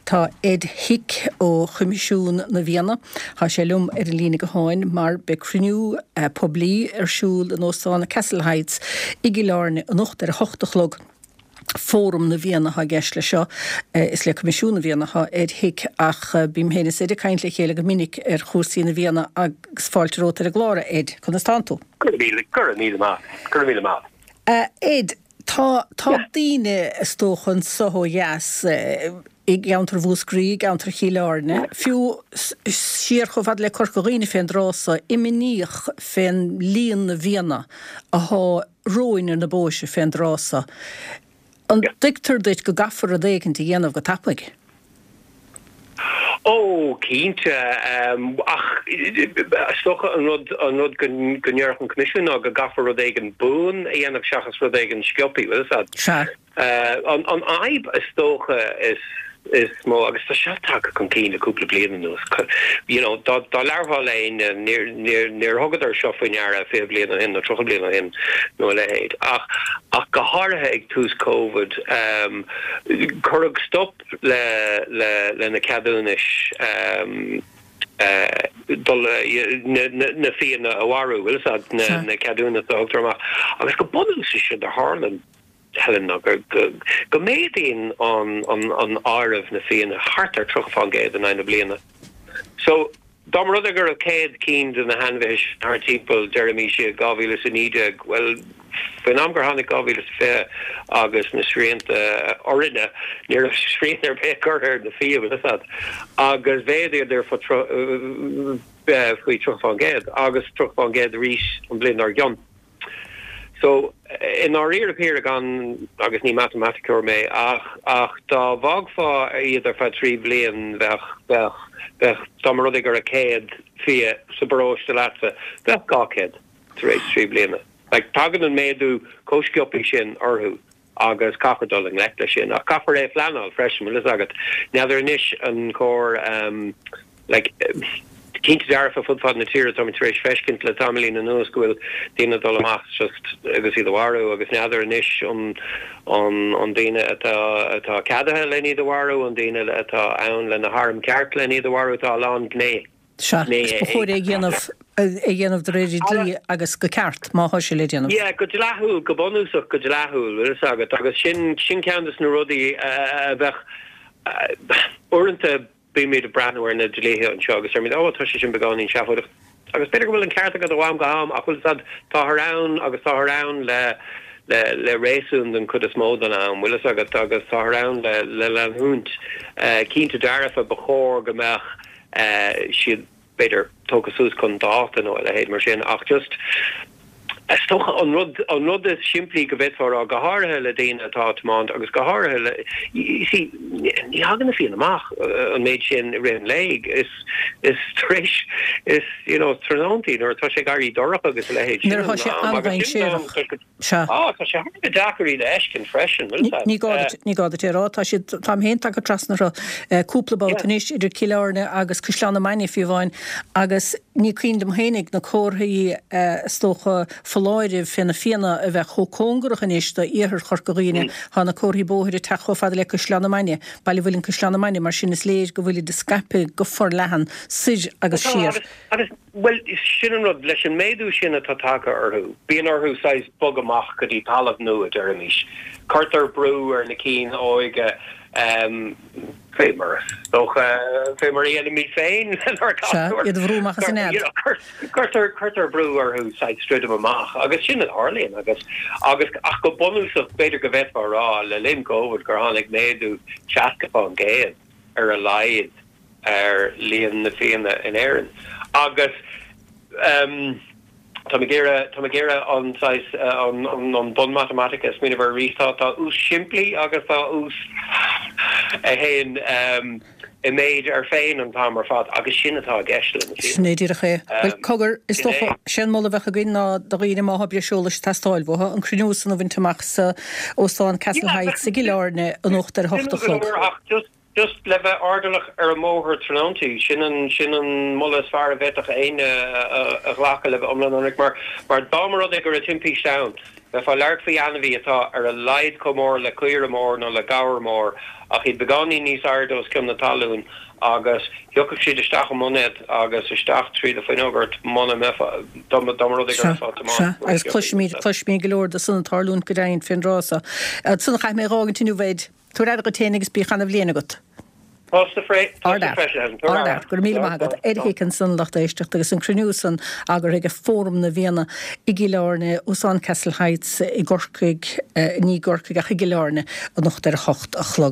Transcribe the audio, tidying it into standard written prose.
Tá Ed Hick ó Choimisiún na bhFianna, tá sé liom ar an líne gutháin mar beidh cruinniú poiblí ar siúl in Óstán Castle Heights i gCill Airne anocht ar a hocht a chlog. Fóram na bhFianna atá i gceist leis seo. Is le Coimisiún na bhFianna atá Ed Hick ach bím féin is Ed ag caint le chéile go minic ar chúrsaí na bhFianna agus fáilte romhat ar an gclár, a Ed. Conas tánn tú? Go raibh míle, go raibh míle maith, go raibh míle maith. A Ed, tá, tá daoine, is dócha, anso ó dheas i gceantar Mhúscraí, i gceantar Chill Airne, fiú siar chomh fada le Corca Dhuibhne fén dtráth so, imníoch fén líon na bhfianna athá romhainn ar na bóithre fén dtráth so. An dtuigtear duit go gcaithfear rud éicint a dhéanamh go tapaidh? Ó, cinnte. Ach is dócha an rud, an rud go ndéarfadh an Coimisiún ná go gcaithfear rud éigin buan a dhéanamh seachas rud éigin sciobtha, bhfuil fhios a'd. Sea. An fhadhb is dócha is is mó, agus tá seo tagtha chun cinn le cúpla bliain anuas, you know, dá dá labharfá le éinne, níor níor níor thugadar seo faoi ndeara 20 bliain ó shin nó 30 bliain ó shin nó a leithéid. Ach ach go háirithe ag tús Covid, cuireadh stop le le le na ceadúnais dul na na na fianna a mharú, bhfuil fhios a'd, na na ceadúnais a thugtar amach. Agus go bunúsach séard a tharla. Helen, ná go méadaíonn an áireamh na fianna thart ar 30% in aghaidh na bliana. So, dá mba rud é go raibh 100 cinn de na hainmhithe sin thart timpeall, deirimís, i 2019, bhuel, faoin am gur tháinig 2020 agus na srianta orainne, ní raibh srian ar bith curtha ar na fia, bhfuil fhios a'd, agus mhéadaíodar faoi 30% agus 30% arís an bhliain dár gcionn. So, i ndáiríre píre gan, agus ní matamaiticeoir mé, ach, ach dá bhfágfá iad ar feadh 3 bhliain bheadh, bheadh, bheadh, dá mba rud é go raibh 100 fia sa bparóiste leatsa, bheadh 200 tar éis 3 bliana. Like, tagann an méadú chomh sciobtha sin orthu agus caithfear dul i ngleic leis sin. Ach caithfear é a phleanáil freisin, bhfuil fhios agat. N'fheadar anois an cóir, like, cinnte dearfa fud fad na tíre, táimid tar éis feiscint le tamaillín anuas go bhfuil daoine ag dul amach just agus iad a mharú agus n'fheadar anois an an an daoine atá atá ceadaithe len iad a mharú, an daoine atá ann le na hairm ceart len iad a mharú, tá a lán gné. Sea, agus ba chóir é a dhéanamh, é a dhéanamh de réir an dlí agus go ceart, má thá sé le déanamh. Yeah, go dleathúil, go bunúsach go dleathúil, bhfuil fhios agat, agus sin, sin ceann des na rudaí a bheadh, uaireanta bímid ag breathnú ar na dlíthe anseo agus deirimid, oh, tá sé sin beagáinín seafóideach. Agus b'fhéidir go bhfuil an ceart agat ó am go ham ach bhfuil fhios agat, táthar ann agus táthar ann le, le, le réasún den chuid is mó den am, bhfuil fhios agat, agus táthar ann le, le leanúint. Cinnte dearfa ba chóir go mbeadh, siad, b'fhéidir, tógtha suas chun dáta nó a leithéid mar sin, ach just, is dócha, an rud, an rud is simplí go bhféadfá a rá, go háirithe le daoine atá ag tiomáint agus go háirithe le, you see, ní thagann na fianna amach an méid sin i rith an lae, is, is tar éis, is, you know, tráthnóntaí nuair atá sé ag éirí dorcha agus a leithéid, sin Nuair atá an sé am agus sin an am, an-dainséarach. Sea. Á, tá sé thar a bheith deacair iad a fheiscint freisin, bhfuil fhios Ní gá duit, ní gá duit é a rá. Tá siad, táim féin tagtha trasna orthu cúpla babhta anois, idir Cill Airne agus Caisleán na Mainge fiú amháin, agus ní cuimhin liom fhéinig na comharthaí is dócha foláirimh fé na fianna a bheith chomh cóngarach anois do iarthar Chorca Dhuibhne. Tá na comharthaí bóthair ag teacht chomh fada le Caisleán na Mainge, Baile Mhuilinn Caisleán na Mainge, mar sin is léir go bhfuilid scaipthe go forleathan soir agus siar. Agus, bhuel, sin an rud, leis an méadú sin atá tagtha orthu, bíonn orthu saghas bogadh amach go dtí talamh nua, deirimis. Cuirtear brú ar na cinn óige, fé mar is dócha, fé mar a dhéanaimid féin lenár Sea, gasúir. iad a bhrú amach as a nead. Cuirtear, cuirtear brú orthu saghas druidim amach, agus sin a tharlaíonn, agus, agus, ach go bunúsach, b'fhéidir go bhféadfá a rá, le linn Covid, gur tháinig méadú 60% ar a laghad ar líon na bhfianna in Éirinn agus táim ag iarraidh, táim ag iarraidh an saghas, an bunmhatamaitic a smaoineamh air arís. Tá, tá ús simplí agus tá ús a théann i méid air féin an t-am ar fad agus sin atá i gceist le na fianna. Sin é díreach é. Bhuel, cogar, is dócha, sé an moladh a bheadh againn ná do dhaoine má thá breis eolais ag teastáil uathu, an cruinniú san a bhaint amach sa Óstán Castle Heights i gCill Airne anocht ar a hocht a chlog. Ach just Just le bheith airdeallach ar an mbóthar tráthnóntaí, sin an, sin an moladh is fearr a bhféadfadh éinne a ghlacadh le bheith iomlán ionraic, mar, mar dá mba rud é go raibh timpiste ann. Bheifeá ag labhairt faoi ainmhí atá ar a laghad chomh mór le caora mór nó le gabhar mór, ach iad beagáinín níos airde os cionn na talún, agus thiocfadh siad isteach i mboinéad agus isteach trí do fuinneog ort muna mbeifeá, dá mba rud é go raibh ag tiomáint. Sea, agus cloisimid, cloisimid go leor de san ag tarlúint go deimhin fén dtráth so. Ansan caithfidh mé a dh'fhágaint inniu, Ed. Tabhair aire dhuit féin agus bíodh ana-bhliain agat. Tusa freisin, Helen. Tabhair aire. Go raibh míle maith agat. Ed Hick ansan, lucht éisteachta, agus an cruinniú san eagraithe ag Fóram na bhFianna i gCill Airne, Óstán Castle Heights i gCorcaigh, ní i gCorcaigh ach i gCill Airne, anocht ar a hocht a chlog.